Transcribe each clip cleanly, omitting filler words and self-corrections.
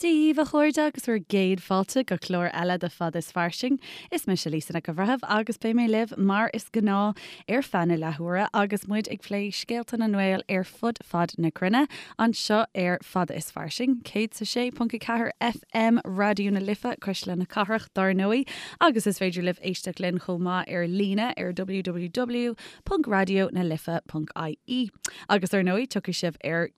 Dia daoibh, a chairde, agus bhur gcéad fáilte go clár eile de Fada is Fairsing. Is mise Lisa Nic an Bhreithimh agus beidh mé libh mar is gnáth ar feadh na leathuaire agus muid ag plé scéalta na nGael ar fud fad na cruinne anseo ar Fada is Fairsing, 106.4 FM Raidió na Life, Cuisle na Cathrach, dár ndóigh, agus is féidir libh éisteacht linn chomh maith ar líne ar www.raidionalife.ie. Agus ar ndóigh, tiocfaidh sibh ar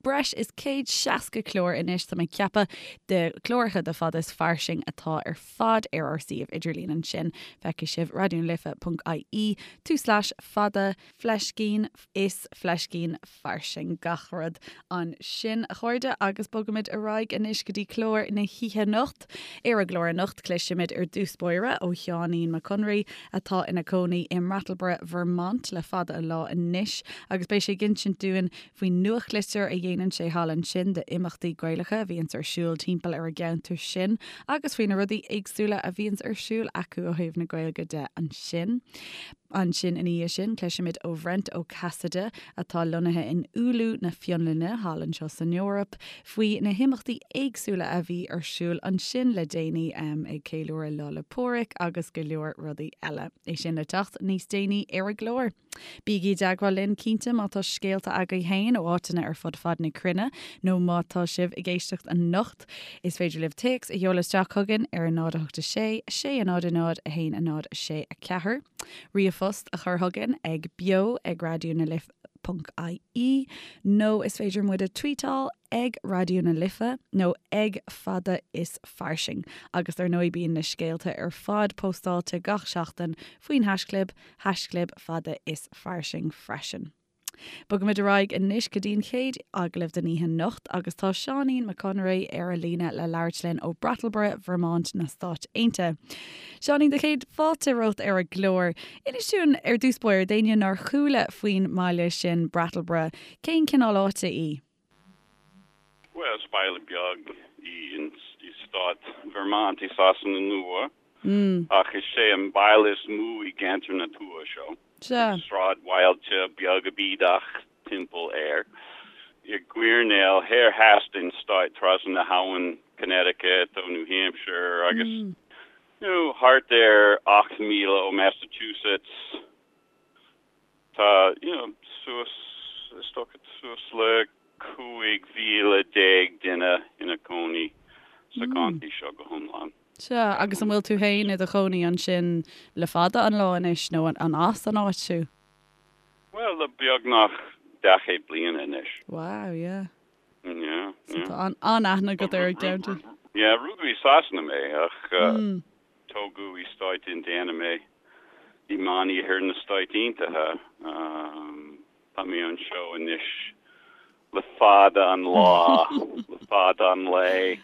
breis is 160 clár anois, tá mé ag ceapadh, de chláracha de Fada is Fairsing atá ar fad ar ár suíomh idirlín ansin. Feicfidh sibh raidionalife.ie tulslais fada fleiscín is fleiscín fairsing gach rud ansin, a chairde, agus bogaimid ar aghaidh anois go dtí clár na hoíche anocht. Ar an gclár anocht, cloisfimid ar dtús báire ó Sheáinín Mac Conraoi, atá ina cónaí i mBrattleboro, Vermont le fada an lá anois, agus beidh sé ag insint dúinn faoin nuachtlitir a dhéanann sé thall ansin d'imeachtaí Gaelacha a bhíonns ar siúl timpeall ar an gceantar sin agus faoi na rudaí éagsúla a bhíonns ar siúl acu ó thaobh na Gaeilge de ansin. Ansin ina dhiaidh sin, cloisfimid ó Bhrent Ó Casaide, atá lonnaithe in Oulu na Fionlainne, thall anseo san Eoraip, faoi na himeachtaí éagsúla a bhí ar siúl ansin le déanaí, ag ceiliúradh Lá 'le Pádraig agus go leor rudaí eile. É sin le teacht níos déanaí ar an gclár. Bígí i dteagmháil linn cinnte má tá scéalta agaibh féin ó áiteanna ar fud fad na cruinne nó má tá sibh ag éisteacht anocht. Is féidir libh téacs a sheoladh isteach chugainn ar 0 8 6 6 0 0 1 0 6 4, ríomhphost a chur chugainn ag beo ag raidió na life ponc ie nó is féidir muid a tweetáil ag Raidió na Life nó ag Fada is Fairsing. Agus ar ndóigh bíonn na scéalta ar fad póstáilte gach seachtain faoin haischlib, haischlib Fada is Fairsing freisin. Bogaimid ar aghaidh anois go dtí an chéad agallamh den oíche anocht agus tá Seáinín Mac Conraoi ar an líne le labhairt linn ó Brattleboro, Vermont na Stáit Aontaithe. Seáinín, do chéad fáilte romhat ar an gclár. Inis dúinn ar dtús báire, d'éinne nár chuala faoin mbaile sin, Brattleboro, cén cineál áite í? Bhuel, is baile beag í i stát Vermont i Sasana Nua, ach is é an baile is mó i gceantar na tuaithe seo. Sea. Sráidbhailte beaga bídeach timpeall air. I gcoirnéal thoir theas den stát trasna na habhann Connecticut ó New Hampshire agus you know thart ar 8 míle ó Massachusetts. Tá, you know, suas, is dócha, suas le 15,000 duine ina cónaí sa gcontae seo go hiomlán. Sea, agus an bhfuil tú féin i do chónaí ansin le fada an lá anois nó an as an áit thú? Bhuel, le beagnach daichead bliana anois. Wow, yeah. Yeah, So yeah. tá an-aithne agat ar an gceantar. Yeah, rugadh i Sasana mé ach tógadh i Stáit Indiana mé, i Meániarthar na Stáit Aontaithe. Tá mé anseo anois le fada an lá, le fada an lae.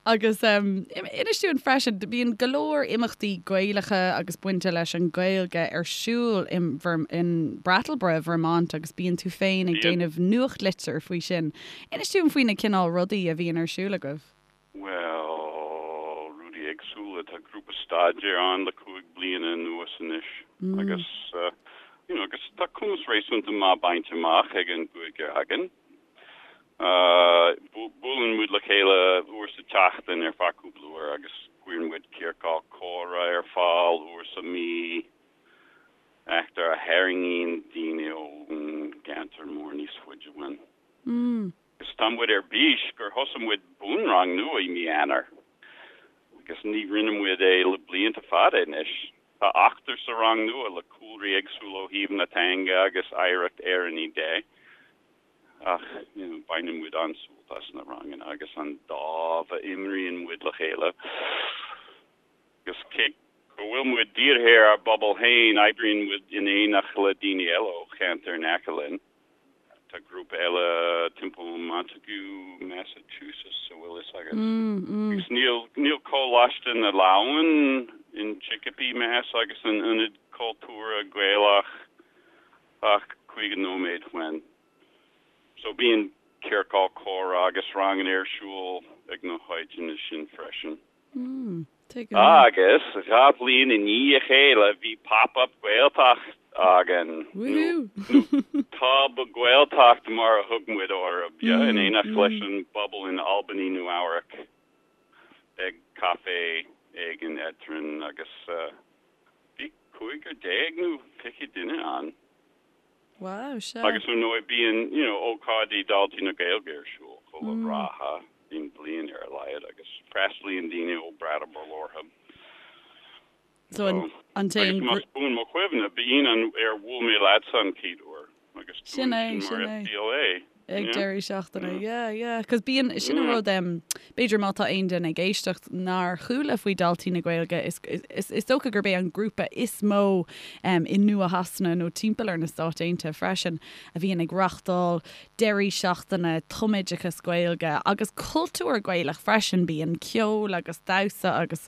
Agus inis dúinn freisin, bíonn go leor imeachtaí Gaelacha agus bainte leis an Ghaeilge ar siúl in Brattleboro, Vermont agus bíonn tú féin ag déanamh nuachtlitir faoi sin. Inis dúinn faoi na cineál rudaí a bhíonn ar siúl agaibh. Bhuel, rudaí éagsúla. Tá grúpa staidéir ann le 5 bliana anuas anois agus you know agus tá cumas réasúnta maith bainte amach ag an gcúigear againn. Buaileann muid le chéile uair sa tseachtain ar feadh cúpla uair agus cuireann muid ciorcal comhrá ar fáil uair sa mhí, eachtra a tharraingíonn daoine ón gceantar mór níos faide uainn. Agus tá muid ar bís gur thosaigh muid bunrang nua i mí Eanáir agus ní rinne muid é le blianta fada anois. Tá ochtar sa rang nua le cúlraí éagsúla ó thaobh na teanga agus oidhreacht Éireannaí de ach you know baineann muid an-sult as na ranganna agus an dáimh a imríonn muid le chéile. Agus cé go bhfuil muid dírithe ar ár bpobal féin, oibríonn muid in éineacht le daoine eile ó cheantair in aice linn. Tá grúpa eile timpeall Montague, Massachusetts, a bhfuil fhios agat. Agus níl, níl Coláiste na Leamhan in Chicopee, Mass agus an Ionad Cultúrtha Gaelach ach 50 nóiméad uainn. So bíonn ciorcal comhrá agus ranganna ar siúl ag na háiteanna sin freisin. Agus 2 bhliain i ndiaidh a chéile bhí Pop Up Gaeltacht againn, nó Tob-Ghaeltacht mar a thug muid orthu, in éineacht leis an bpobal in Albany, Nua Eabhrac. Ag caifé éigin eadrainn agus bhí 15 nó 20 duine ann. Wow, sea. Agus ar ndóigh bíonn, you know, ócáidí Daltaí na Gaeilge ar siúl chuile ráithe den bhliain ar a laghad agus freastalaíonn daoine ó Brattleboro orthu. So an an t-aon Agus más buan mo chuimhne, b'in an ar bhuail mé leatsa an chéad uair agus tú Sin é, ansin sin mar é. FBLA. Ag Yeah. deireadh seachtaine, yeah, yeah. 'Cause bíonn, sin an Yeah. rud, em, b'fhéidir má tá aon duine ag éisteacht nár chuala faoi Daltaí na Gaeilge, is, is, is dócha gurb é an grúpa is mó, em, i Nua-Shasana nó timpeall ar na Stáit Aontaithe freisin a bhíonn ag reachtáil deirí seachtaine tumoideachas Gaeilge agus cultúr Gaelach freisin. Bíonn ceol agus damhsa agus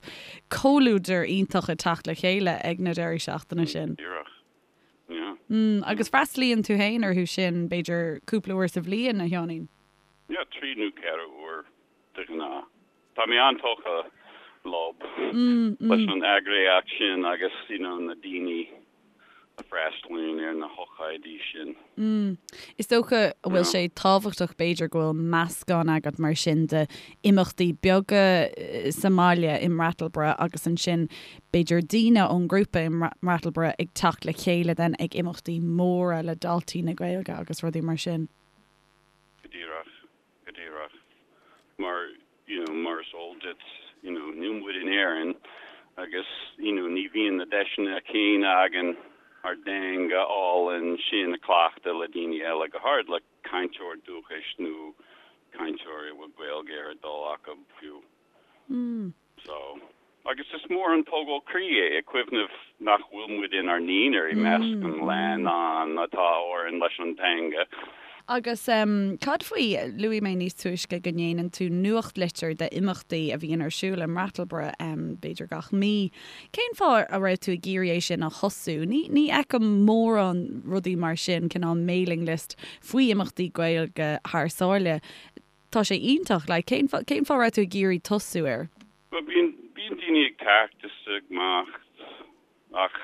comhluadar iontach ag teacht le chéile ag na deirí seachtaine sin. Díreach. Yeah. Mm, agus freastalaíonn tú féin orthu sin, b'fhéidir, cúpla uair sa bhliain, a Sheáinín? Yeah, 3 nó 4 uair de ghnáth. Tá mé an-tógtha leo, leis an eagraíocht sin agus, you know, na daoine a freastalaíonn ar na hócáidí sin. Mm. Is dócha go bhfuil sé tábhachtach b'fhéidir go bhfuil meascán agat mar sin de imeachtaí beaga sa mbaile i mBrattleboro agus ansin b'fhéidir daoine ón ngrúpa i mBrattleboro ag teacht le chéile then ag imeachtaí móra le Daltaí na Gaeilge agus rudaí mar sin. Go díreach, go díreach. Mar, you know, mar is eol duit, you know, níl muid in Éirinn agus, you know, ní bhíonn na deiseanna céanna againn ár dteanga álainn sin a chleachtadh le daoine eile, go háirid le cainteoir dúchais nó cainteoir a bhfuil Gaeilge ar a dtoil acu fiú. So, agus is mór an tógáil croí é ag cuimhneamh nach bhfuil muid inár n-aonar i measc an leannáin atá orainn leis an teanga. Agus cad faoi, luaigh mé níos túisce go ndéanann tú nuachtlitir d'imeachtaí a bhíonn ar siúl i mBrattleboro, b'fhéidir gach mí. Cén fáth a raibh tú ag iarraidh é sin a thosú? Ní ní fheicim mórán rudaí mar sin, cineál mailing list faoi imeachtaí Gaeilge thar sáile. Tá sé iontach. Like, cén fáth, cén fáth a raibh tú ag iarraidh tosú air? Bhuel, bíonn, bíonn daoine ag teacht is ag imeacht ach,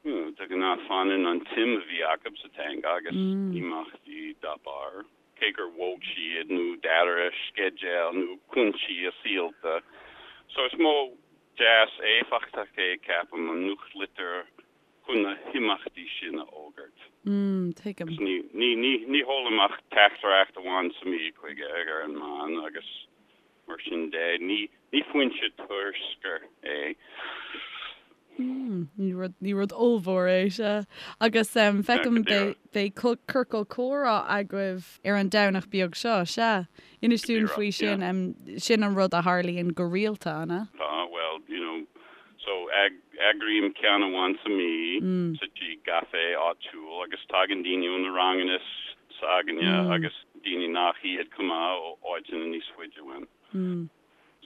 you know, de ghnáth fanann an tsuim a bhí acu sa teanga agus imeachtaí dá barr, cé gur bhog siad nó d'athraigh a sceideal nó cúinsí a saolta. So is modh deas éifeachtach é, ceapaim, an nuachtlitir chun na himeachtaí sin a fhógairt. Mm, tuigim. Agus ní, ní, ní, ní sheolaim ach teachtaireacht amháin sa mhí chuige ar an meán agus mar sin de, ní, ní foinse turscair é. Mm, ní rud, ní rud ollmhór é, sea. Agus em, feicim beidh, beidh ciorcal comhrá agaibh ar an Domhnach beag seo, sea. Inis dúinn faoi sin, em, sin an rud a tharlaíonn go rialta, an ea? Tá, bhuel, you know, So, eagraím ceann amháin sa mhí sa tigh gcaife áitiúil agus tagann daoine ó na ranganna s'againne agus daoine nach iad chomh maith ó áiteanna níos faide uainn.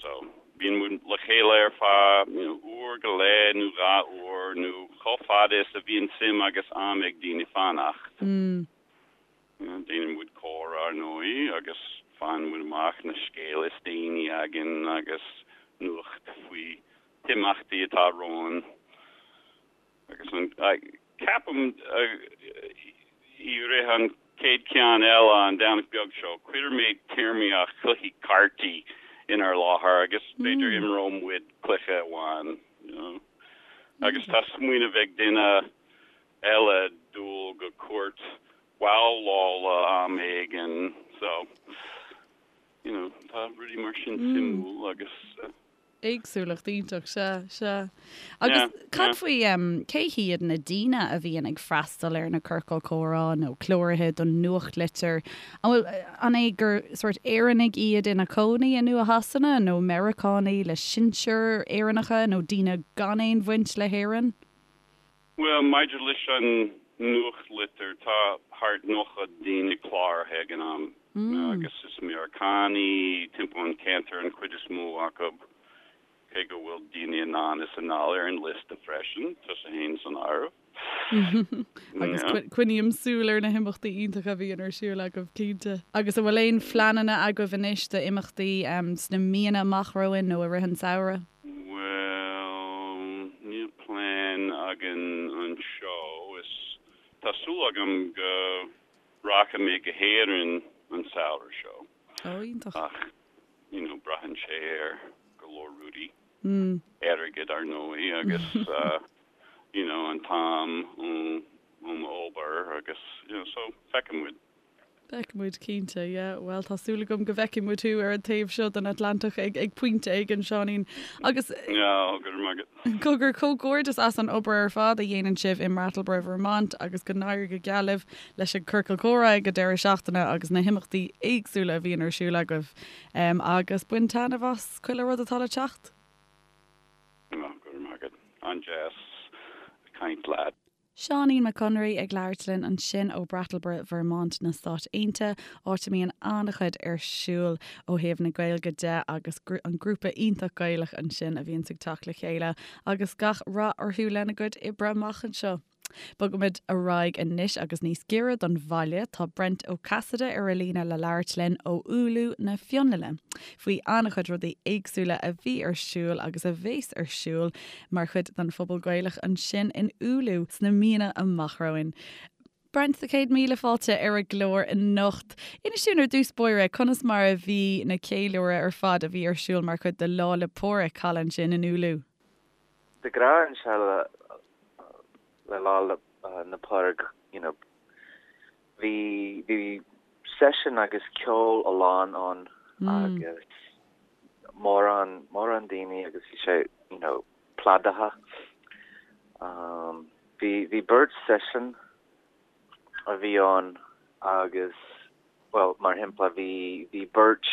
So, bíonn muid le chéile ar feadh, you know, uair go leith nó 2 uair nó chomh fada is a bhíonn suim agus am ag daoine fanacht. Déanann muid comhrá ar ndóigh agus faigheann muid amach na scéalta is déanaí againn agus nuacht faoi himeachtaí atá romhainn agus an, ceapaim i rith an chéad cheann eile an Domhnach beag seo cuirfidh mé téarmaíocht chluichí cártaí inár láthair agus b'fhéidir imreoidh muid cluiche amháin you know agus tá smaoineamh ag duine eile dul go cúirt bhabhlála am éigin so you know tá rudaí mar sin suimiúil agus. Éagsúlacht iontach, sea, sea. Agus cad faoi, cé hiad na daoine a bhíonn ag freastal ar na ciorcail comhrá nó cláraithe don nuachtlitir? An bhfuil, an é gur sórt Éireannaigh iad ina cónaí i Nua-Shasana nó Meiriceánaigh le sinsir Éireannacha nó daoine gan aon bhaint le hÉirinn? Bhuel, maidir leis an nuachtlitir, tá thart 90 daoine cláraithe ag an am, agus is Meiriceánaigh timpeall an cheantair an chuid is mó acu, cé go bhfuil daoine anonn is anall ar an liosta freisin, tusa fhéin san áireamh. Agus coinním súil ar na himeachtaí iontacha a bhíonn ar siúl agaibh, cinnte. Agus an bhfuil aon phleananna agaibh anois d'imeachtaí sna míonna amach romhainn nó i rith an tsamhraidh? Bhuel, níl plean againn anseo. Is tá súil agam go rachaidh mé go hÉirinn an samhradh seo. Ó, iontach. Ach, you know, braitheann sé ar go leor. rudaí. Airgead ar ndóigh agus you know an t-am ón obair agus you know so feicfidh muid. Feicfidh muid cinnte, yeah. Bhuel, tá súil agam go bhfeicfidh muid thú ar an taobh seo den Atlantach ag ag pointe éigin, Seáinín. Agus. Yeah, go raibh maith agat. Cogar, comhghairdeas as an obair ar fad a dhéanann sibh i mBrattleboro, Vermont agus go n-éirí go geal libh leis an Ciorcal Comhrá ag an deireadh seachtaine agus na himeachtaí éagsúla a bhíonn ar siúl agaibh. Agus bain taitneamh as chuile rud atá le teacht. Go raibh maith agat. An-deas caint leat. Seáinín Mac Conraoi ag labhairt linn ansin ó Brattleboro, Vermont na Stáit Aontaithe, áit a mbíonn an-chuid ar siúl ó thaobh na Gaeilge de agus an grúpa iontach Gaelach ansin a bhíonns ag teacht le chéile agus gach rath orthu lena gcuid oibre amach anseo. Bogaimid ar aghaidh anois agus níos giorra don bhaile, tá Brent Ó Casaide ar an líne le labhairt linn ó Oulu na Fionlainne faoi an-chuid rudaí éagsúla a bhí ar siúl agus a bheas ar siúl mar chuid den phobal Gaelach ansin in Oulu sna míonna amach romhainn. Brent, 100,000 fáilte ar an gclár anocht. Inis dúinn ar dtús báire conas mar a bhí na ceiliúradh ar fad a bhí ar siúl mar chuid de Lá 'le Pádraig thall ansin in Oulu. De ghnáth anseo le Lá 'le Pádraig you know bhí bhí seisiún agus ceol a lán ann agus mórán mórán daoine agus bhí sé you know plódaithe. Um, bhí bhí beirt seisiún a bhí ann agus well mar shampla bhí bhí beirt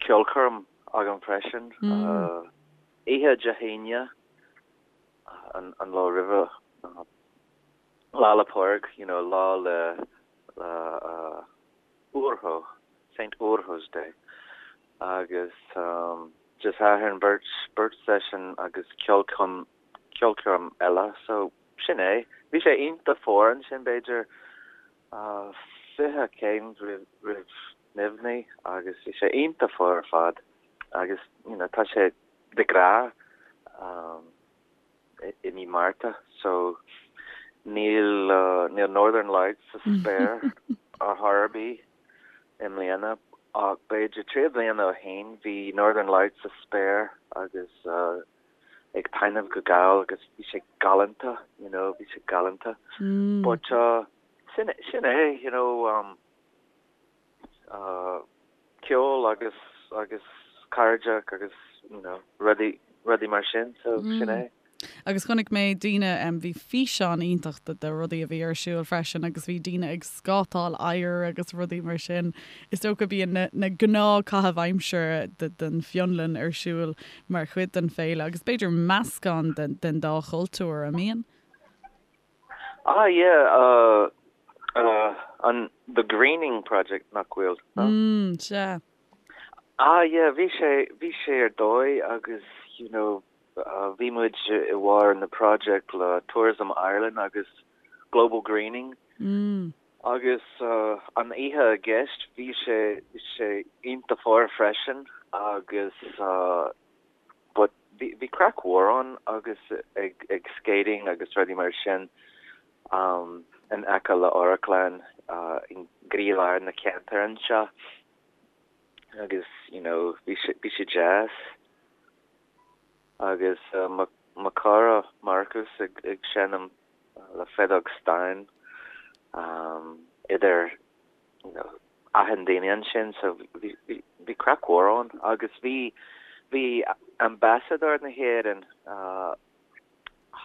ceolchoirm agam freisin uh, oíche Dé hAoine an, an lá roimhe uh, Lá 'le Pádraig, you know, lá le le uh, Urho, Saint Urho's Day. Agus um, Dé Sathairn beirt beirt seisiún agus ceolchoirm ceolchoirm eile, so sin é. Bhí sé iontach fuar ansin b'fhéidir uh, 20 céim roimh roimh nimhní agus bhí sé iontach fuar ar fad agus you know, tá sé de ghnáth um, i mí Márta so níl níl Northern Lights sa spéir ar chor ar bith i mbliana ach b'fhéidir 3 bliana ó shin bhí Northern Lights sa spéir agus ag taitneamh go geal agus bhí sé galánta you know bhí sé galánta but sin sin é you know um ceol agus agus cairde agus you know rudaí rudaí mar sin so sin é. Agus chonaic mé daoine, bhí físeán iontach de de rudaí a bhí ar siúl freisin agus bhí daoine ag scátáil oighir agus rudaí mar sin. Is dócha bíonn na na gnáthchaithimh aimsire de den Fionlainn ar siúl mar chuid den féile agus b'fhéidir meascán den den dá chultúr, an mbíonn? Ah yeah uh uh an the Greening Project nach bhfuil no? Mm sea. Ah yeah bhí sé bhí sé ar dóigh agus you know uh bhí muid i bharr na project le Tourism Ireland agus Global Greening Mm. agus uh an oíche i gceist bhí sé bhí sé iontach fuar freisin agus uh But bhí bhí craic mhór ann agus ag ag skating agus rudaí mar sin um in aice le amharclann uh i gcroílár na ceantair anseo agus you know bhí sé bhí sé deas agus uh mo mo chara Marcus ag ag seinm le feadóg stáin um idir you know achan duine ansin so bhí bhí craic mhór ann agus bhí bhí ambasadóir na hÉireann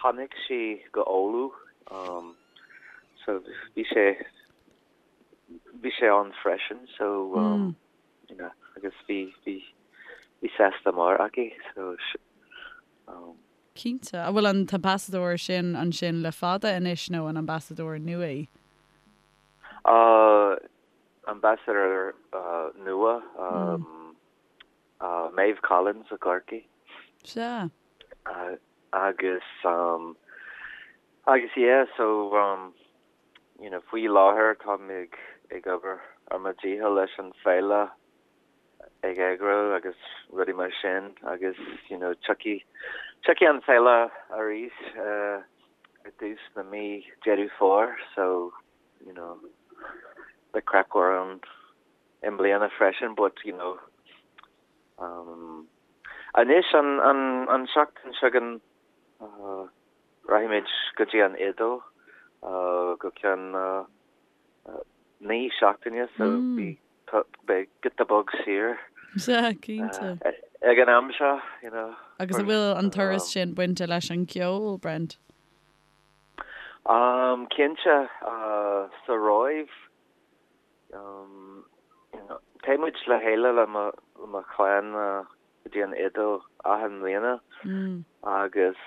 tháinig sí go Oulu um so bhí sé bhí sé ann freisin so um you know agus bhí bhí bhí sásta mór aici so um. Cinnte. An bhfuil an t-ambasadóir sin ansin le fada anois nó an ambasadóir nua í? Ambassador nua, Maeve Collins i gCorcaigh. Sea. Agus, agus yeah, so, you know, faoi láthair táim ag, ag obair ar mo dhícheall leis an féile ag eagrú agus rudaí mar sin agus, you know, tiocfaidh, tiocfaidh an féile arís i dtús na mí Deireadh Fómhair so, you know, beidh craic mhór ann i mbliana freisin but, you know, um, Anois an an an seachtain seo chugainn rachaimid go dtí an Iodáil go ceann 9 seachtaine so beidh giota beag saor. Sea, cinnte. Ag an am seo, you know. Agus an bhfuil an turas sin bainte leis an gceol, Brent? Cinnte, sa Róimh, téann muid le chéile le mo chlann go dtí an Iodáil achan mbliana agus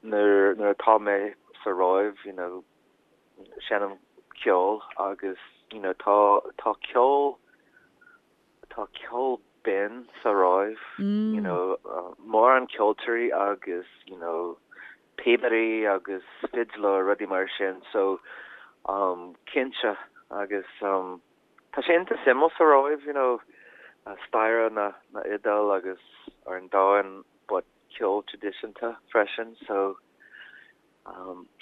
nuair atá mé sa Róimh, you know, seinnim ceol agus you know tá tá ceol tá ceol binn sa Róimh you know mórán ceoltóirí agus you know píobairí agus fidléir rudaí mar sin so um cinnte agus um tá sé iontach suimiúil sa Róimh you know staire na na Iodáil agus ar an domhan but ceol traidisiúnta freisin so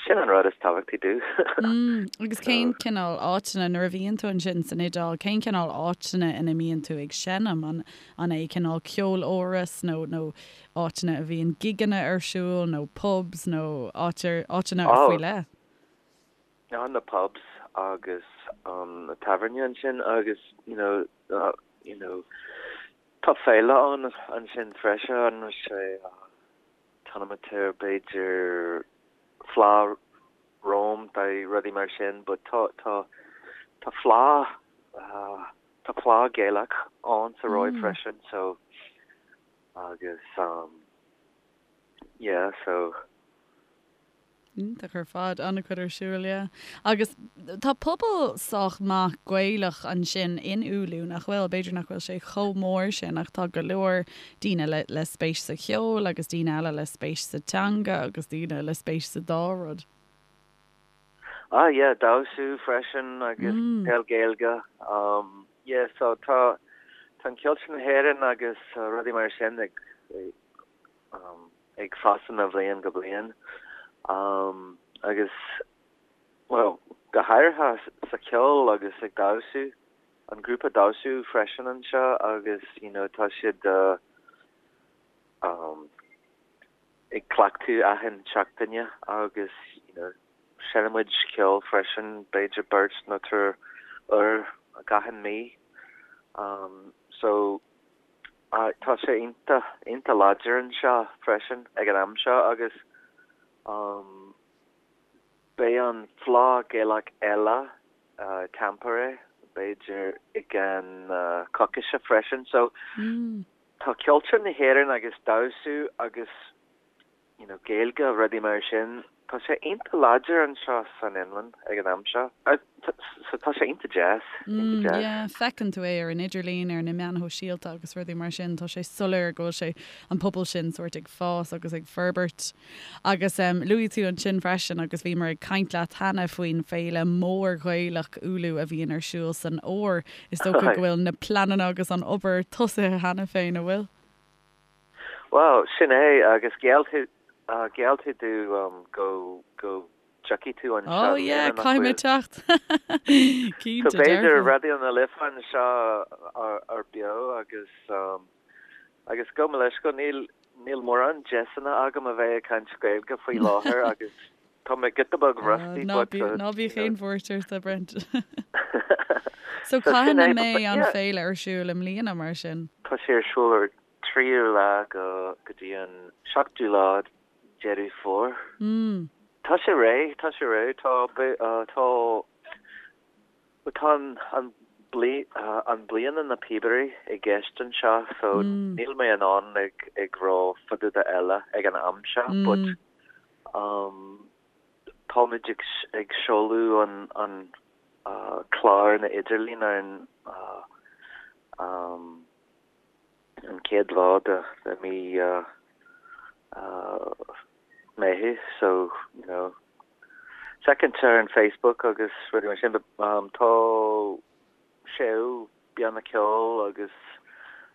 Sin an rud is tábhachtaí domh. Agus cén cineál áiteanna, nuair a bhíonn tú ansin san Iodáil, cén cineál áiteanna ina mbíonn tú ag seinm? An an é cineál ceoláras nó nó áiteanna a bhíonn gigeanna ar siúl nó pubs nó áit áiteanna faoi leith? Oh, na pubs agus na tábhairne ansin agus you know you know tá féile ann ansin freisin, sé Tanameter b'fhéidir Fleadh Rome nó rudaí mar sin but tá tá tá fleá tá fleá Gaelach ann sa Róimh freisin so agus um yeah so. Iontach ar fad, an-chuid ar siúl, yeah. Agus tá pobal sách maith Gaelach ansin in Oulu, nach bhfuil? B'fhéidir nach bhfuil sé chomh mór sin ach tá go leor daoine le le spéis sa cheol agus daoine eile le spéis sa teanga agus daoine le spéis sa dá rud. Ah yeah, damhsa freisin agus peil Gaeilge. Um yeah, so tá tá an cultúr na hÉireann agus rudaí mar sin ag um ag fás ó bhliain go bliain agus, bhuel, go háirithe sa cheol agus ag damhsa, an grúpa damhsa freisin anseo agus you know tá siad ag cleachtadh achan seachtaine agus you know seinneann muid ceol freisin, b'fhéidir beirt nó triúr uair gach mí. So. Tá sé iontach, iontach láidir anseo freisin ag an am seo agus beidh an Fleadh Gaelach eile i Tampere b'fhéidir i gceann coicíse freisin. So tá cultúr na hÉireann agus damhsa agus you know, Gaeilge, rudaí mar sin, tá sé iontach láidir anseo san Fhionlainn ag an am seo. So tá sé iontach deas, iontach deas. Yeah, feiceann tú é ar an idirlíon, ar na meáin shóisialta agus rudaí mar sin, tá sé soiléir go bhfuil sé, an pobal sin sórt ag fás agus ag forbairt. Agus em, luaigh tú ansin freisin agus bhíomar ag caint leat cheana faoin féile mór Ghaelach Oulu a bhíonn ar siúl san fhómhar. Is dócha go bhfuil na pleananna agus an obair tosaithe cheana féin, an bhfuil? Bhuel, sin é, agus gheall tú, gheall tú domh go, go dtiocfaidh tú anseo Oh yeah, caithfidh mé teacht! Cinnte, So b'fhéidir Raidió na Life anseo ar beo agus, agus gabh mo leithscéal, níl, níl mórán deiseanna agam a bheith ag caint Gaeilge faoi láthair agus Tá mé giota beag rusty but. Ná bíodh aon bhuairt ort, a Brent. So cathain a mbeidh an féile ar siúl i mbliana mar sin? Tá sé ar siúl ar 3ú lá go go dtí an 7ú lá Deireadh Fómhair. Tá sé réidh, tá sé réidh, tá tá Tá an an bliana na píobairí i gceist anseo so níl mé in ann ag ag rá fá dtaobh de eile ag an am seo but um táimid ag ag seoladh an an clár na idirlín ar an um an chéad lá de de mí Meitheamh so you know feiceann tú ar an Facebook agus rudaí mar sin but um tá seó banna ceoil agus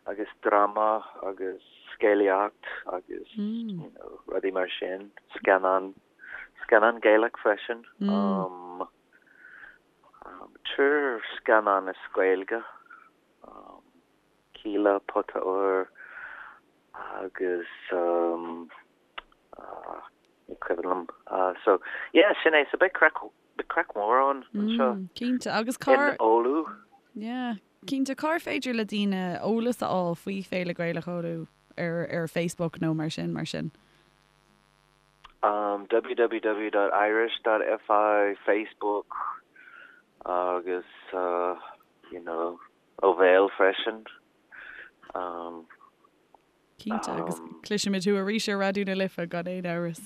agus dráma agus scéalaíocht agus you know rudaí mar sin scannán scannán Gaelach freisin um um triúr scannán as Gaeilge um Kíla Pota Óir agus. Agus um ní cuimhin liom. So yeah, sin é. So beidh craic, beidh craic mhór ann anseo. Mm, cinnte. Agus cár. In Oulu. Yeah, cinnte. Cár féidir le daoine eolas a fháil faoi Féile Gaelach Oulu ar ar Facebook nó mar sin, mar sin? Um, www.irish.fi, Facebook agus uh, you know, ó bhéal freisin. Um, Cinnte, agus cloisfimid thú arís ar Raidió na Life gan aon amhras.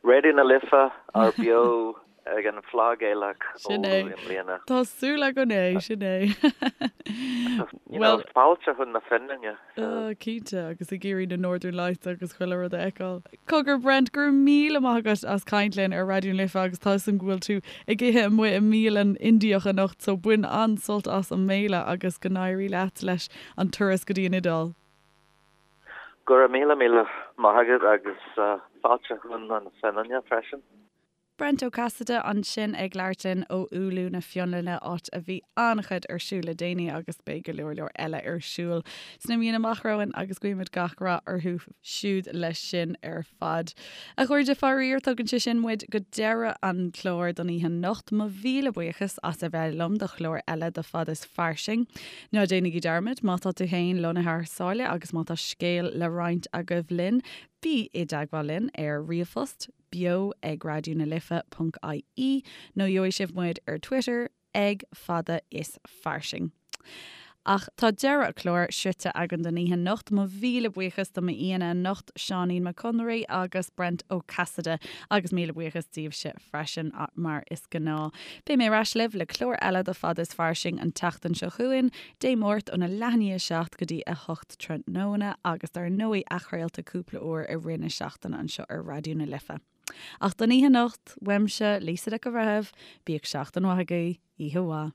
Raidió na Life ar beo ag an Fleadh Gaelach Sin Oulu é. i mbliana. Tá súil againn é, sin é. You know, fáilte chun na Fionlainne. Oh, cinnte, agus ag iarraidh na Northern Lights agus chuile rud a fheiceáil. Cogar Brent, go raibh míle maith agat as caint linn ar Raidió na Life agus tá 'fhios a'm go bhfuil tú ag ithe amuigh i mbialann Indiach anocht so bain an-sult as an mbéile agus go n-éirí leat leis an turas go dtí an Iodáil. Go raibh míle míle maith agat agus fáilte chun na Fionlainne freisin. Brent Ó Casaide ansin ag labhairt linn ó Oulu na Fionlainne, áit a bhí an-chuid ar siúl le déanaí agus beidh go leor leor eile ar siúl sna míonna amach romhainn agus guímid gach rath orthu siúd leis sin ar fad. A chairde, faraor, tugann sé sin muid go deireadh an chláir don oíche anocht. Mo mhíle buíochas as a bheith liom do chlár eile de Fad is Fairsing. Ná déanaigí dearmad, má tá tú féin lonnaithe thar sáile agus má tá scéal le roinnt agaibh linn, bí i dteagmháil linn ar ríomhphost, beo ag raidió na life ponc ie nó gheobhaidh sibh muid ar Twitter ag fada is fairsing. Ach tá deireadh an chláir sroichte againn don oíche anocht. Mo mhíle buíochas do m'aíonna anocht, Seáinín Mac Conraoi agus Brent Ó Casaide, agus míle buíochas daoibhse freisin, mar is gnáth. Beidh mé ar ais libh le clár eile de Fada is Fairsing an tseachtain seo chugainn, Dé Máirt óna leath i ndiaidh 7 go dtí 8 tráthnóna agus dar ndóigh athchraolta cúpla uair i rith na seachtaine anseo ar Raidió na Life. Ach don oíche anocht, uaimse, Lisa Nic an Bhreithimh, bíodh seachtain mhaith agaibh, oíche mhaith.